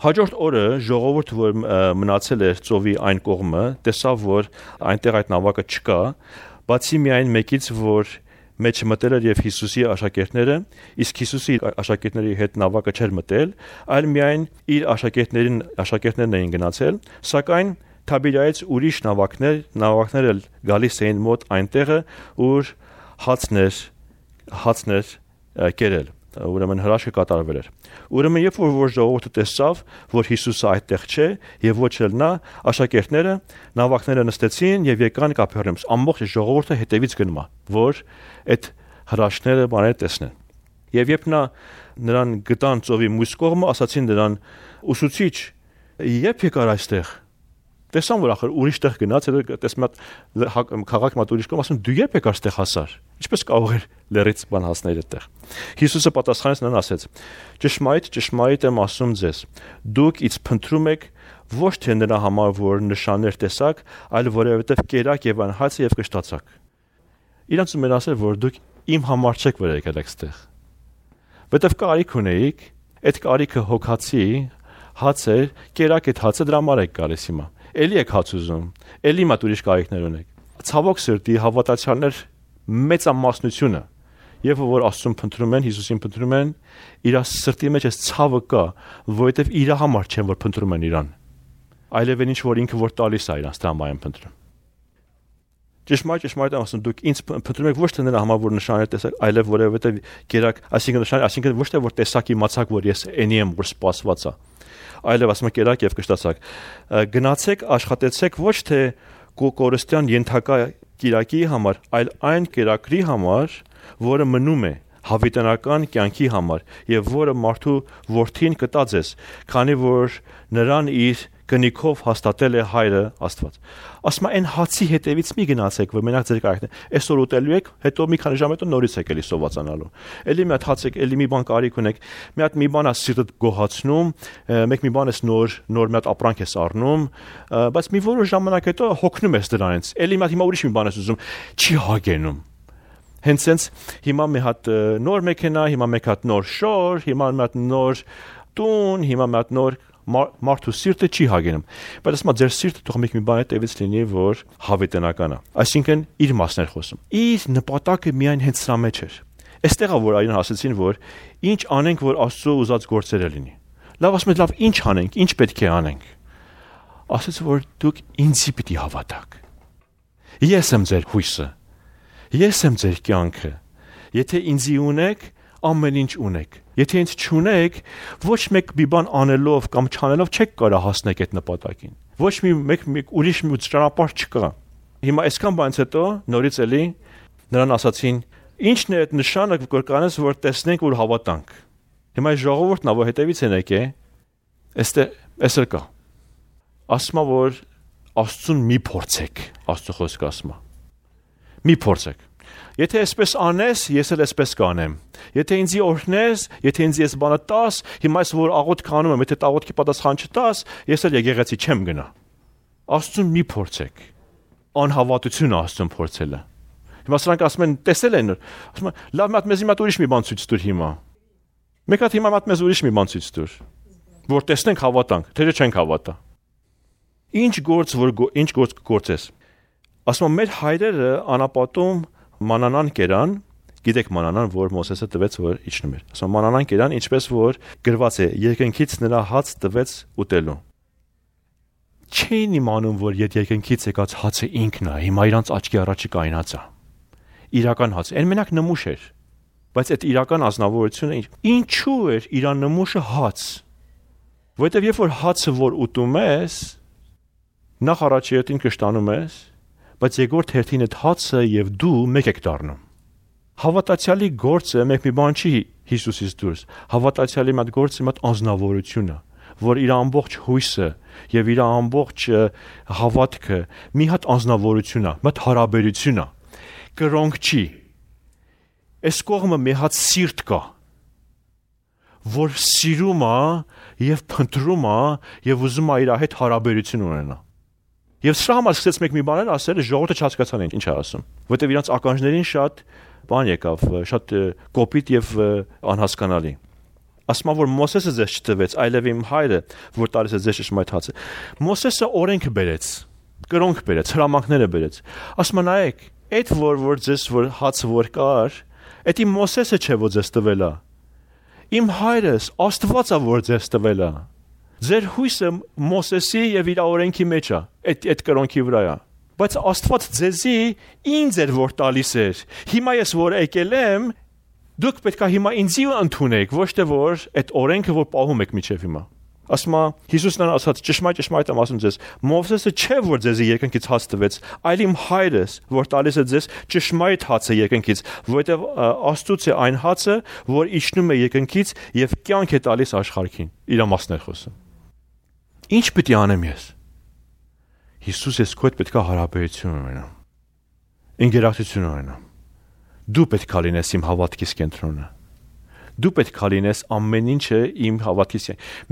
Հաջորդ օրը ժողովուրդը որ մնացել էր ծովի այն կողմը, տեսավ որ այնտեղ այդ նավակը չկա, բացի միայն մեկից որ մեջ մտել էր եւ Հիսուսի աշակերտները, իսկ Հիսուսի աշակերտների հետ նավակը չէր մտել, այլ միայն իր աշակերտներն էին գնացել, սակայն Թաբիրայից ուրիշ նավակներ գալիս էին մոտ այնտեղը, ուր հացներ կերել, ուրեմն հրաշքը կատարվել էր։ Ուրեմն երբ որ ժողովուրդը տեսավ, որ Հիսուսը այդտեղ չէ եւ ոչ էլ նա, աշակերտները նավակները նստեցին եւ եկան Կափերնաում։ Ամբողջ ժողովուրդը հետևից գնում է, որ այդ հրաշքները բաները տեսնեն։ Եվ երբ նրան գտան ծովի մյուս կողմը, ասացին նրան. «Ուսուցիչ, երբ եկար այստեղ»։ Տեսան որ ախր ուրիշ տեղ գնաց, տեսնում եմ քաղաք մատ ուրիշ կողմ, ասում դու երբ եկար այստեղ հասար։ Ինչպես կարող էր լերից բան հասնել այդտեղ։ Հիսուսը պատասխանեց նրան ասեց. «Ճշմարիտ եմ ասում ձեզ, դուք ինձ փնտրում եք, Ոչ թե նրա համար, որ նշաններ տեսակ, այլ որովհետև կերակ եւ անհաց եւ կշտացակ։ Իրանց ուներ ասել, որ դուք իմ համար չեք վրա եկել այստեղ։ Որտեվ կարիք ունեիք, այդ կարիքը հոգացի հաց էր, կերակ այդ հացը դրա համար եք գալիս հիմա։ Էլի եք հաց ուզում, էլի մատ ուրիշ կարիքներ ունեք։ Ցավոք սրտի հավատացյալներ մեծամասնությունը եւ որ Աստծուն փնտրում են, Հիսուսին փնտրում են, իր սրտի մեջ այս ցավը կա, որովհետեւ իր համար չեն որ փնտրում են իրան։ Այլև ինչ որ ինքը որ տալիս է իրանց դրա համար են փնտրում։ Ճշմարիտ ասում դուք ինձ փնտրում եք ոչ թե նրա համար որ նշաններ տեսակ, այլև որովհետեւ կերակ, այսինքն ոչ թե որ տեսակ իմացակ որ ես էնի եմ որ սպասված է, այլև ասում կերակ եւ կշտացակ։ Գնացեք, աշխատեցեք ոչ թե կորստյան ենթակա կիրակի համար, այլ այն կերակրի համար, որը մնում է հավիտենական կյանքի համար եւ որը մարդու որդին կտա ձեզ, քանի որ նրան իր գնիքով հաստատել է հայրը Աստված։ Ասում այն հացի հետևից մի գնացեք, որ մենակ ձեր կարիքն է։ Այսօր ուտելու եք, հետո մի քանի ժամ հետո նորից եք էլի սովածանալու։ Էլի մի հատ հաց եք, էլի մի բան կարիք ունեք, մի հատ մի բան է սիրտդ գոհացնում, մեկ մի բան ես նոր մի հատ ապրանք ես առնում, բայց մի որոշ ժամանակ հետո հոգնում ես դրանից։ Էլի մի հատ հիմա ուրիշ մի բան ես ուզում, չի հագենում։ Հենց sense հիմա մի հատ նոր մեքենա, հիմա մեկ հատ նոր շոր, հիմա մի հատ նոր տուն, հիմա մի հատ նոր մարդու սիրտը չի հագենում։ Բայց ասում ձեր սիրտը թող մի բան հետևից լինի, որ հավիտենական է։ Այսինքն իր մասն էր խոսում։ Իր նպատակը միայն հենց սրա մեջ էր։ Այստեղ է որ այրան ասեցին, որ ինչ անենք, որ Աստծո ուզած գործերը լինի։ Լավ ասում են, լավ ինչ անենք, ինչ պետք է անենք։ Ասեց որ դուք ինձի պիտի հավատաք։ Ես եմ ձեր հույսը։ Ես եմ ձեր կյանքը։ Եթե ինձի ունեք, ամեն ինչ ունեք։ Եթե ինձ չունեք, ոչ մեկ մի բան անելով կամ չանելով չեք կարող հասնել այդ նպատակին։ Ոչ մեկ ուրիշ մի ճանապարհ չկա։ Հիմա այսքան բանից հետո նորից էլի նրան ասացին. «Ինչն է այդ նշանը, որ կանես, որ տեսնենք, որ հավատանք»։ Հիմա այս ժողովուրդն ավ հետևից են եկե։ Էստեղ կա։ Ասում որ Աստծուն մի փորձեք, Աստծո խոսքը ասում է։ Մի փորձեք։ Եթե այսպես անես, ես էլ այսպես կանեմ։ Եթե ինձի օրհնես, եթե ինձ ես բանը տաս, հիմա ես որ աղոթք անում եմ, եթե աղոթքի պատասխան չտաս, ես էլ եկեղեցի չեմ գնա։ Աստծուն մի փորձեք։ Անհավատությունը Աստծուն փորձելը։ Հիմա սրանք ասում են, տեսել են, ասում են, լավ մատ մեզ հիմա ուրիշ մի բան ցույց տուր հիմա։ Մեկ հատ հիմա մատ մեզ ուրիշ մի բան ցույց տուր։ Որ տեսնենք հավատանք, թե չենք հավատա։ Ինչ գործ գործես։ Ասում մեր հայրերը անապատում մանանան կերան, գիտեք մանանան, որ Մոսեսը տվեց, որ իջնում էր։ Ասում մանանան կերան, ինչպես որ գրված է, երկնքից նրա հաց տվեց ուտելու։ Չէին իմանում, որ երկնքից եկած հացը ինքն է, հիմա իրանց աչքի առաջի կայնած է։ Իրական հաց, այն մենակ նմուշ էր, բայց այդ իրական ազնվորությունը ինչու էր իրան նմուշը հաց։ Որովհետև երբ որ հացը որ ուտում ես, նախ առաջի ետին կշտանում ես, բայց երկրորդ հերթին այդ հացը եւ դու մեկ եք դառնում։ Հավատացյալի գործը մեկ մի բան չի Հիսուսից դուրս։ Հավատացյալի մատ գործը մատ անznավորությունը, որ իր ամբողջ հույսը եւ իր ամբողջ հավատքը մի հատ անznավորություն է, մատ հարաբերություն է։ Կրոնք չի։ Այս կողմը մի հատ սիրտ կա, որ սիրում է եւ փնտրում է եւ ուզում է իր հետ հարաբերություն ունենա։ Եվ սրա համար սկսեց մեկ մի բաներ ասել, ժողովուրդը չհասկացան ինչ է ասում, որտեղ իրանց ականջներին շատ բան եկավ, շատ կոպիտ եւ անհասկանալի։ Ասում որ Մոսեսը ձեզ չտվեց, այլև իմ հայրը, որ տալիս է ձեզ ճշմարիտ հացը։ Մոսեսը օրենքը բերեց, կրոնք բերեց, հրամանքները բերեց։ Ասում նայեք, այդ որ ձեզ որ հացը որ կար, այդ իմ Մոսեսը չէ որ ձեզ տվել է։ Իմ հայրս Աստվածը որ ձեզ տվել է։ Ձեր հույսը Մոսեսի եւ իր օրենքի մեջ է, այդ կրոնքի վրա է։ Բայց Աստված ձեզի ինձ էր որ տալիս էր։ Հիմա ես որ եկել եմ, դուք պետք է հիմա ինձի ընդունեք, ոչ թե որ այդ օրենքը որ պահում եք միջև հիմա։ Ասում է Հիսուսն ասաց ճշմարիտ եմ ասում ձեզ, Մովսեսը չէ որ ձեզի երկնքից հաց տվեց, այլ իմ հայրս որ տալիս է ձեզ ճշմարիտ հացը երկնքից, որովհետև Աստծուց է այն հացը, որ իջնում է երկնքից եւ կյանք է տալիս աշխարհին։ Իր մասն է խոսում։ Ինչ պետք է անեմ ես։ Հիսուս ես քո հետ պետք է հարաբերություն ունենամ։ Ինտերակցիա ունենամ։ Դու պետք է լինես իմ հավատքիս կենտրոնը։ Դու պետք է լինես ամեն ինչը իմ հավատքից։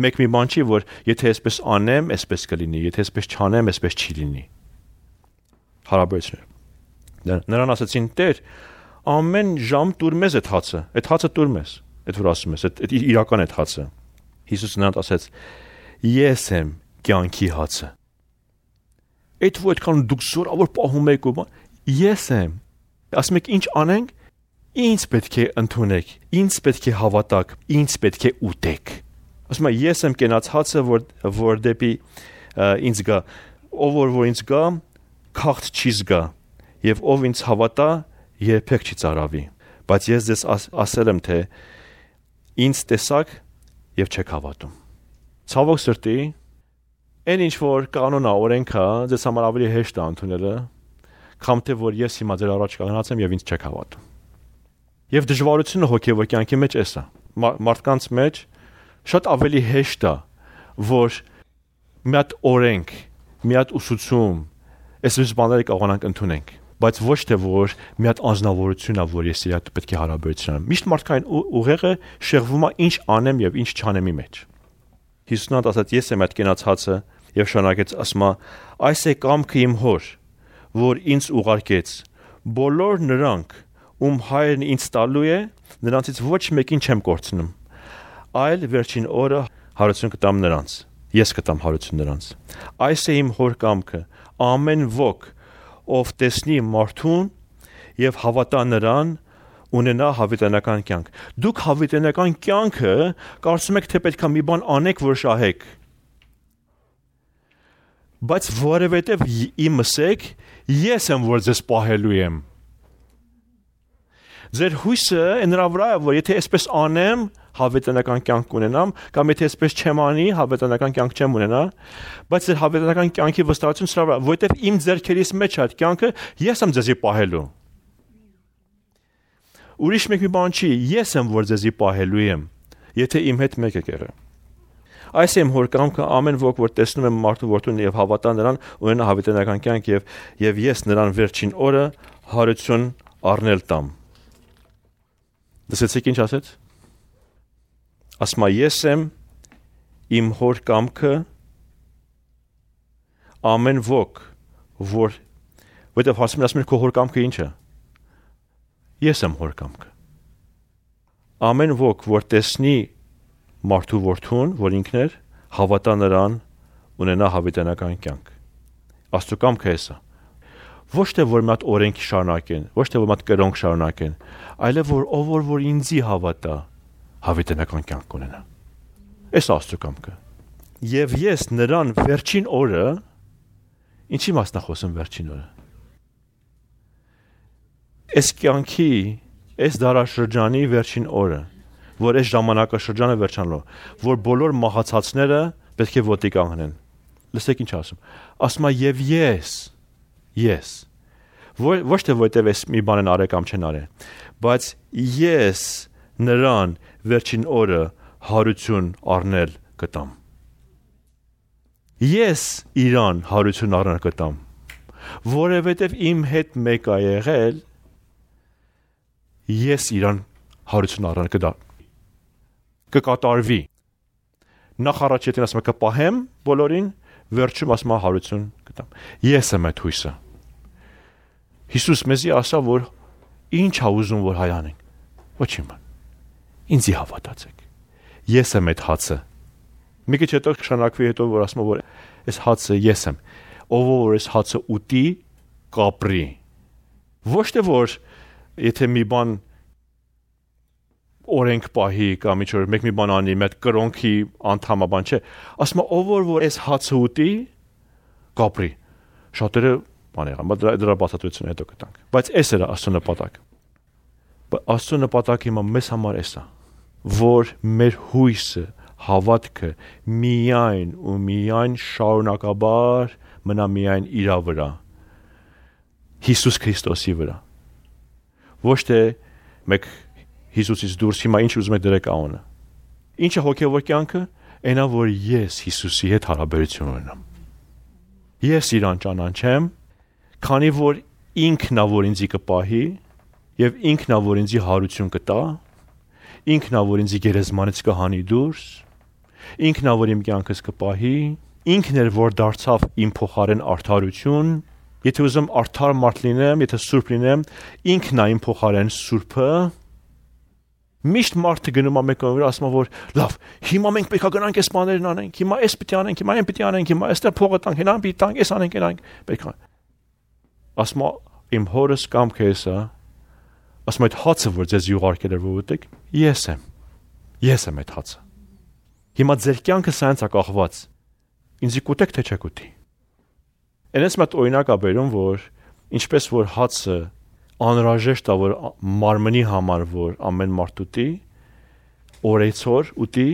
Մեկ մի բան չի, որ եթե այսպես անեմ, այսպես կլինի, եթե այսպես չանեմ, այսպես չի լինի։ Հարաբերություններ։ Նրան ասացին. «Տեր, ամեն ժամ տուր մեզ այդ հացը տուր մեզ»։ Այդ որ ասում ես, այդ իրական այդ հացը։ Հիսուսը նրան ասաց. «Ես եմ կյանքի հացը»։ Այդ որ այդքան դուք զորավոր պահում եք ու ես եմ։ Ասում եք ինչ անենք։ Ինձ պետք է ընդունեք, ինձ պետք է հավատաք, ինձ պետք է ուտեք։ Ասում եմ ես եմ կենաց հացը, որ դեպի ինձ գա, ով որ ինձ գա, քաղց չի զգա, եւ ով ինձ հավատա, երբեք չի ծարավի։ Բայց ես ձեզ ասել եմ, թե ինձ տեսակ եւ չեք հավատում։ Ցավոք սրտի, այն ինչ որ կանոնա օրենքա, ձեզ համար ավելի հեշտ է ընդունելը, քան թե որ ես հիմա ձեր առաջ կանգնած եմ եւ ինձ չեք հավատում։ Եվ դժվարությունը հոգևոր կյանքի մեջ էս է։ Մարդկանց մեջ շատ ավելի հեշտ է, որ մի հատ օրենք, մի հատ ուսուցում, այսպես բաները կարողանանք ընդունենք, բայց ոչ թե որ մի հատ անձնավորություն է, որ ես իրար պետք է հարաբերություն ունեմ։ Միշտ մարդկային ուղեղը շեղվում է ինչ անեմ եւ ինչ չանեմի մեջ։ Հիսուսն ասաց. «Ես եմ այդ կենաց հացը» եւ շարունակեց ասում. «Այս է կամքը իմ հոր, որ ինձ ուղարկեց։ Բոլոր նրանք, ում հայրն ինձ տալու է, նրանցից ոչ մեկին չեմ կորցնում, այլ վերջին օրը հարություն կտամ նրանց, ես կտամ հարություն նրանց։ Այս է իմ հոր կամքը, ամեն ոք, ով տեսնի մարդուն եւ հավատա նրան, ունենա հավիտենական կյանք»։ Դուք հավիտենական կյանքը կարծում եք, թե պետք է մի բան անեք, որ շահեք։ Բայց որևէտև իմս եք, ես եմ, որ ձեզ պահելու եմ։ Ձեր հույսը նրա վրա է, որ եթե այսպես անեմ, հավիտենական կյանք ունենամ, կամ եթե այսպես չեմ անի, հավիտենական կյանք չեմ ունենա, բայց ձեր հավիտենական կյանքի վստահությունը սրա վրա, որովհետև իմ ձեռքերից մեջ այդ կյանքը ես եմ ձեզի պահելու։ Ուրիշ մեկ մի բան չի, ես եմ, որ ձեզի պահելու եմ, եթե իմ հետ մեկ եք եղել։ Այս եմ հոր կամքը, ամեն ոք, որ տեսնում եմ մարդու որդուն եւ հավատա նրան, ունենա հավիտենական կյանք եւ ես նրան վերջին օրը հարություն առնել տամ։ Լսեցիք ինչ ասեց։ Ասում է ես եմ իմ հոր կամքը, ամեն ոք, որտեղ ասում է քո հոր կամքը ինչ է։ Ես եմ հոր կամքը։ Ամեն ոք, որ տեսնի մարդու որդուն, որ ինքն էր, հավատա նրան, ունենա հավիտենական կյանք։ Աստծո կամքը էսա։ Ոչ թե որ մի հատ օրենք շարունակեն, ոչ թե որ մի հատ կրոնք շարունակեն, այլև որ ինձի հավատա, հավիտենական կյանք ունենա։ Էս Աստծո կամքը։ Եվ ես նրան վերջին օրը, ինչի մասն է խոսում վերջին օրը։ Այս կյանքի, այս դարաշրջանի վերջին օրը, որ այս ժամանակաշրջանը վերջանալու, որ բոլոր մահացածները պետք է ոտի կանգնեն։ Լսեք ինչ ասում։ Ասում է եւ ես։ Ոչ թե որտեվ այս մի բան են արել կամ չեն արել, բայց ես նրան վերջին օրը հարություն առնել կտամ։ Ես իրան հարություն առնել կտամ, որովհետև իմ հետ մեկ է եղել, ես իրան հարություն առնել կտամ։ Կկատարվի։ Նախ առաջ եթե ասում եմ կպահեմ բոլորին, վերջում ասում եմ հարություն կտամ։ Ես եմ այդ հույսը։ Հիսուս մեզի ասա, որ ինչ է ուզում որ հայանենք։ Ոչինչ բան։ Ինձի հավատացեք։ Ես եմ այդ հացը։ Մի քիչ հետո շանակվի հետո որ ասում որ այս հացը ես եմ։ Ով որ այս հացը ուտի, կապրի։ Ոչ թե որ եթե մի բան օրենք պահի կամ ինչ որ մեկ մի բան անի, մեկ կրոնքի անդամաբան չէ, ասում ով որ այս հացը ուտի, կապրի։ Շատերը բան եղան, բայց դրա բացատրությունը հետո կտանք։ Բայց էս էր Աստծո նպատակը։ Աստծո նպատակը հիմա մեզ համար էս է, որ մեր հույսը, հավատքը միայն ու միայն շարունակաբար մնա միայն իր վրա։ Հիսուս Քրիստոսի վրա։ Ոչ թե մեկ Հիսուսից դուրս հիմա ինչ ուզում եք դրեք անունը։ Ինչը հոգևոր կյանքը, այնա որ ես Հիսուսի հետ հարաբերություն ունենամ։ Ես իրան ճանաչեմ, քանի որ ինքն է որ ինձի կպահի եւ ինքն է որ ինձի հարություն կտա ինքն ա որ ինձ գերեզմանից կհանի դուրս, ինքն ա որ իմ կյանքս կպահի, ինքն էր որ դարձավ իմ փոխարեն արդարություն, եթե ուզում արդար մարդ լինեմ, եթե սուրբ լինեմ, ինքն ա իմ փոխարեն սուրբը։ Միշտ մարդը գնում է մեկը վրա ասում որ լավ, հիմա մենք պետք է գնանք այս բաներն անենք, հիմա այս պիտի անենք, հիմա այն պիտի անենք, հիմա այստեղ փողը տանք, հենան պիտի տանք, այս անենք, անենք, պետք է։ Ասում իմ հորս կամքը էսա, ասում այդ հացը որ ձեզ ուղարկել էր որ ուտեք, ես եմ այդ հացը։ Հիմա ձեր կյանքը սրանց է կախված։ Ինձ կուտեք թե չեք ուտի։ Այնպես մոտ օրինակ ա բերում որ ինչպես որ հացը անհրաժեշտ է որ մարմնի համար որ ամեն մարդ ուտի, օրեցօր ուտի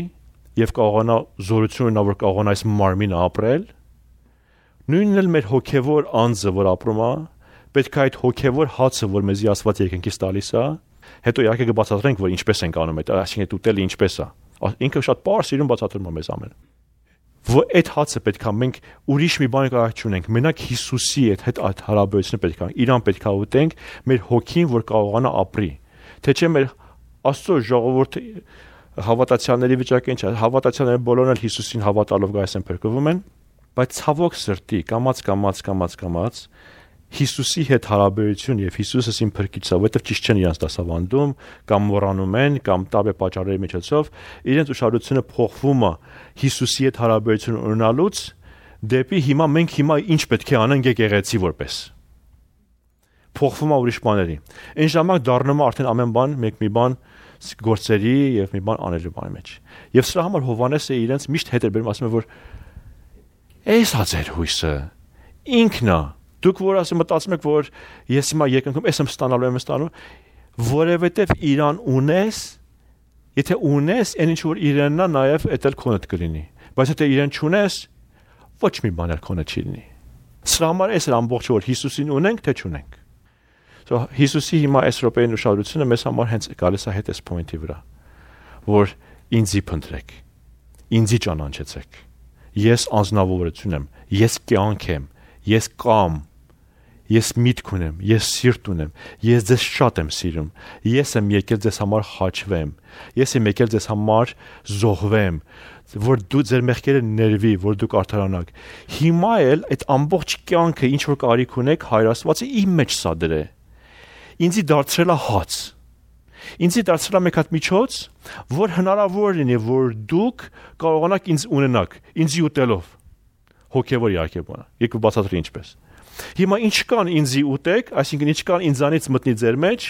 եւ կարողանա զորություն ունենա որ կարողանա այս մարմինը ապրել, նույնն էլ մեր հոգեվոր անձը որ ապրում է, պետք է այդ հոգեվոր հացը որ մեզի Աստված երկնքից տալիս է, հետո իհարկե կբացատրենք որ ինչպես ենք անում այդ, այսինքն այդ ուտելը ինչպես է։ Ինքը շատ պարզ իրեն բացատրում է մեզ ամեն։ Որ այդ հացը պետք է մենք ուրիշ մի բան կարող չունենք, մենակ Հիսուսի հետ հարաբերությունը պետք է, իրան պետք է ուտենք, մեր հոգին որ կարողանա ապրի։ Թե չէ մեր Աստծո ժողովուրդը հավատացյալների վիճակը ինչ է, հավատացյալները բոլորն էլ Հիսուսին հավատալով գայս են փրկվում են, բայց ցավոք սրտի կամաց Հիսուսի հետ հարաբերություն եւ Հիսուսը իմ փրկիչը, որովհետեւ ճիշտ չեն իրանց դասավանդում, կամ մոռանում են, կամ տաբե պատճառների միջոցով, իրենց ուշադրությունը փոխվում է Հիսուսի հետ հարաբերություն ունենալուց դեպի հիմա մենք ինչ պետք է անենք եկեղեցի որպես։ Փոխվում է ուրիշ բաների։ Այն ժամանակ դառնում է արդեն ամեն բան մի բան գործերի եւ մի բան անելու բանի մեջ։ Եվ սրա համար Հովհաննեսը իրենց միշտ հետ էր բերում, ասում է որ «Էս հա ձեր հույսը ինքն է»։ Դուք որ ասում մտածում եք որ ես հիմա երկնքում եմ ստանալու եմ ստանալու, որովհետև իրան ունես, եթե ունես, այն ինչ որ իրանն է, նաև էդ էլ քոնդ կլինի։ Բայց եթե իրան չունես, ոչ մի բան էլ քոնը չի լինի։ Սրա համար էս է ամբողջ որ Հիսուսին ունենք, թե չունենք։ So Հիսուսի հիմա այս րոպեին ուշադրությունը մեզ համար հենց գալիս է հետ այս point-ի վրա, որ ինձի փնտրեք, ինձի ճանաչեցեք։ Ես անձնավորություն եմ, ես կյանք եմ, ես կամ Ես միտք ունեմ, ես սիրտ ունեմ, ես ձեզ շատ եմ սիրում, ես եմ եկել ձեզ համար խաչվեմ, ես եմ եկել ձեզ համար զոհվեմ, որ դու ձեր մեղքերը ներվի, որ դուք արդարանաք։ Հիմա էլ այդ ամբողջ կյանքը ինչ որ կարիք ունեք, Հայր Աստվածը իմ մեջ սա դրե։ Ինձի դարձրել է հաց։ Ինձի դարձրել է մեկ հատ միջոց, որ հնարավոր լինի, որ դուք կարողանաք ինձ ունենաք, ինձի ուտելով։ Հոգևոր իհարկե բանը։ Եկու բացատրի ինչպես։ Հիմա ինչ կան ինձի ուտեք, այսինքն ինչ կան ինձանից մտնի ձեր մեջ,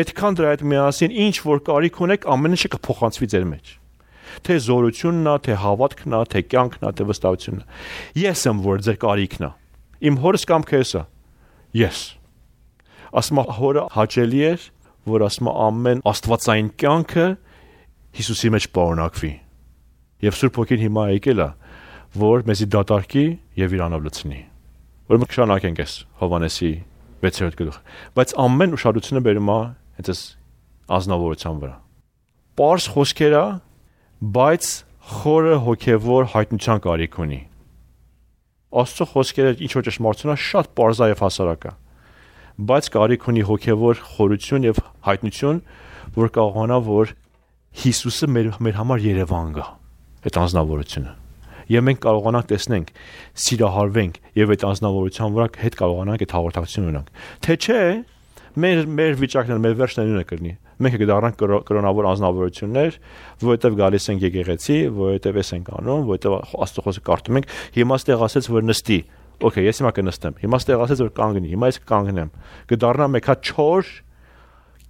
այդքան դրա հետ միասին ինչ որ կարիք ունեք, ամեն ինչը կփոխանցվի ձեր մեջ։ Թե զորությունն է, թե հավատքն է, թե կյանքն է, թե վստահությունն է։ Ես եմ որ ձեր կարիքն է։ Իմ հորս կամքը էսա։ Ես։ Ասում հորը հաճելի էր, որ ասում ամեն աստվածային կյանքը Հիսուսի մեջ պարունակվի։ Եվ Սուրբ Հոգին հիմա եկել է, որ մեզի դատարկի եւ իրանով լցնի։ Որ մենք շարունակենք այս Հովհաննեսի 6-րդ գլուխը, բայց ամեն ուշադրությունը բերում է հենց այս ազնվորության վրա։ Պարզ խոսքեր է, բայց խորը հոգևոր հայտնության կարիք ունի։ Աստծո խոսքերը ինչ որ ճշմարտություն է, շատ պարզ է եւ հասարակ է, բայց կարիք ունի հոգևոր խորություն եւ հայտնություն, որ կարողանա որ Հիսուսը մեր համար Երևան գա, այդ անձնավորությունը։ Եվ մենք կարողանանք տեսնենք, սիրահարվենք եւ այդ անձնավորության վրա հետ կարողանանք այդ հաղորդակցություն ունենանք։ Թե չէ, մեր վիճակն մեր վերջն նույնը կլինի։ Մենք կդառնանք կրոնավոր անձնավորություններ, որովհետեւ գալիս ենք եկեղեցի, որովհետեւ էս ենք անում, որովհետեւ Աստծո խոսքը կարդում ենք, հիմա ստեղ ասեց որ նստի։ Okay, ես հիմա կնստեմ։ Հիմա ստեղ ասեց որ կանգնի, հիմա ես կկանգնեմ։ Կդառնա մեկ հատ չոր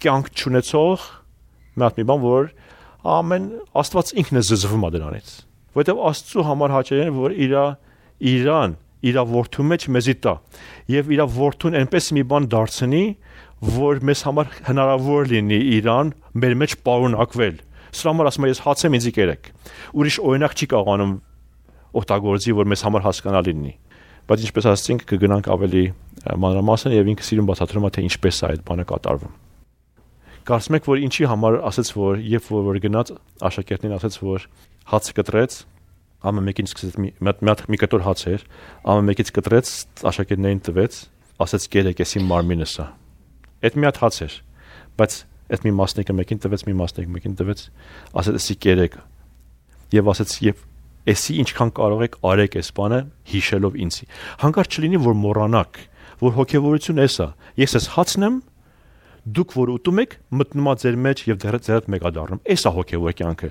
կյանք չունեցող մի բան, որ ամեն Աստված ինքն է զզվում դրանից։ Որովհետև Աստծո համար հաճելի է որ իր որդու մեջ մեզի տա եւ իր որդուն այնպես մի բան դարձնի որ մեզ համար հնարավոր լինի իրան մեր մեջ պարունակվել։ Սրա համար ասում եմ ես հաց եմ ինձի կերեք։ Ուրիշ օրինակ չի կարողանում օգտագործի որ մեզ համար հասկանալի լինի։ Բայց ինչպես ասացինք կգնանք ավելի մանրամասն եւ ինքը սիրուն բացատրում է թե ինչպես է այդ բանը կատարվում։ Կարծում եք որ ինչի համար ասեց որ երբ որ գնաց աշակերտներին ասեց որ հաց կտրեց, ամեն մեկին սկսեց մի կտոր հաց էր, ամեն մեկից կտրեց, աշակերտներին տվեց, ասեց կերեք էս իմ մարմինս է։ Այդ մի հատ հաց էր, բայց Այդ մի մասնիկը մեկին տվեց, մի մասնիկը մեկին տվեց, ասեց էսի կերեք։ Եվ ասեց եւ էսի ինչքան կարող եք արեք այս բանը հիշելով ինձի։ Հանկարծ չլինի որ մոռանաք, որ հոգեվորություն էսա։ Ես ես հացնեմ, դուք որ ուտում եք, մտնում ա ձեր մեջ եւ ձեր հետ մեկադառնում։ Էսա հոգեվոր կյանքը։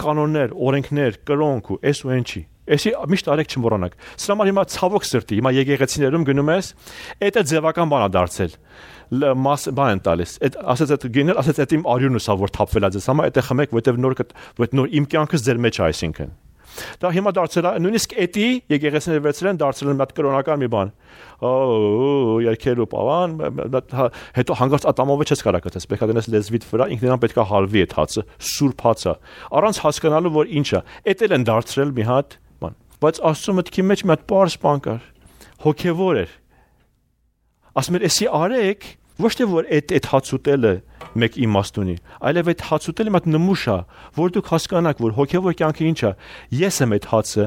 Կանոններ, օրենքներ, կրոնք ու էս ու ինչի։ Էսի միշտ արեք չմոռանաք։ Սրա համար հիմա ցավոք սրտի, հիմա եկեղեցիներում գնում ես, դա ձևական բան է դարձել։ Բան են տալիս։ Այդ ասած այդ գինել, ասած այդ իմ արյունս ա որ թափվել է ձեզ համար, դա խմեք, որտեվ նոր իմ կյանքս ձեր մեջ է այսինքն։ Դա հիմա դարձել է նույնիսկ էտի եկեղեցիները վերցրել են դարձել են մի կրոնական մի բան։ Երկերու պավան, հետո հանգարց ատամով չես կարող գտես, պետք է դնես լեզվիդ վրա, ինքնին պետք է հալվի այդ հացը, սուրբ հացը, առանց հասկանալու որ ինչ է։ Էդ էլ են դարձրել մի հատ բան։ Բայց Աստծո մտքի մեջ մի հատ պարզ բան կար։ Հոգևոր էր։ Ասում էր, «Էսի արեք, ոչ թե որ այդ հաց ուտելը մեկ իմաստ ունի, այլև այդ հաց ուտելը մի հատ նմուշ է, որ դուք հասկանաք, որ հոգևոր կյանքը ինչ է։ Ես եմ այդ հացը,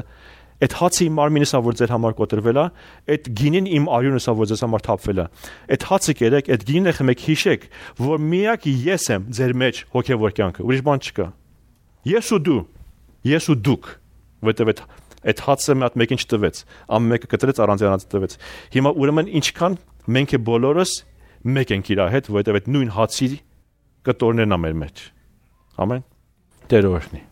այդ հացը իմ մարմինս է, որ ձեր համար կոտրվել է, այդ գինին իմ արյունս է, որ ձեզ համար թափվել է։ Այդ հացը կերեք, այդ գինը խմեք, հիշեք, որ միակ ես եմ ձեր մեջ հոգևոր կյանքը, ուրիշ բան չկա։ Ես ու դու, ես ու դուք, որտեղ այդ հացը մի հատ մեկին չտվեց, ամեն մեկը կտրեց առանց առանց տվեց։ Հիմա ուրեմն ինչքան մենք բոլորս մեկ ենք իր հետ, որտեղ այդ նույն հացի կտորներն ա մեր մեջ։ Ամեն։ Տեր օրհնի։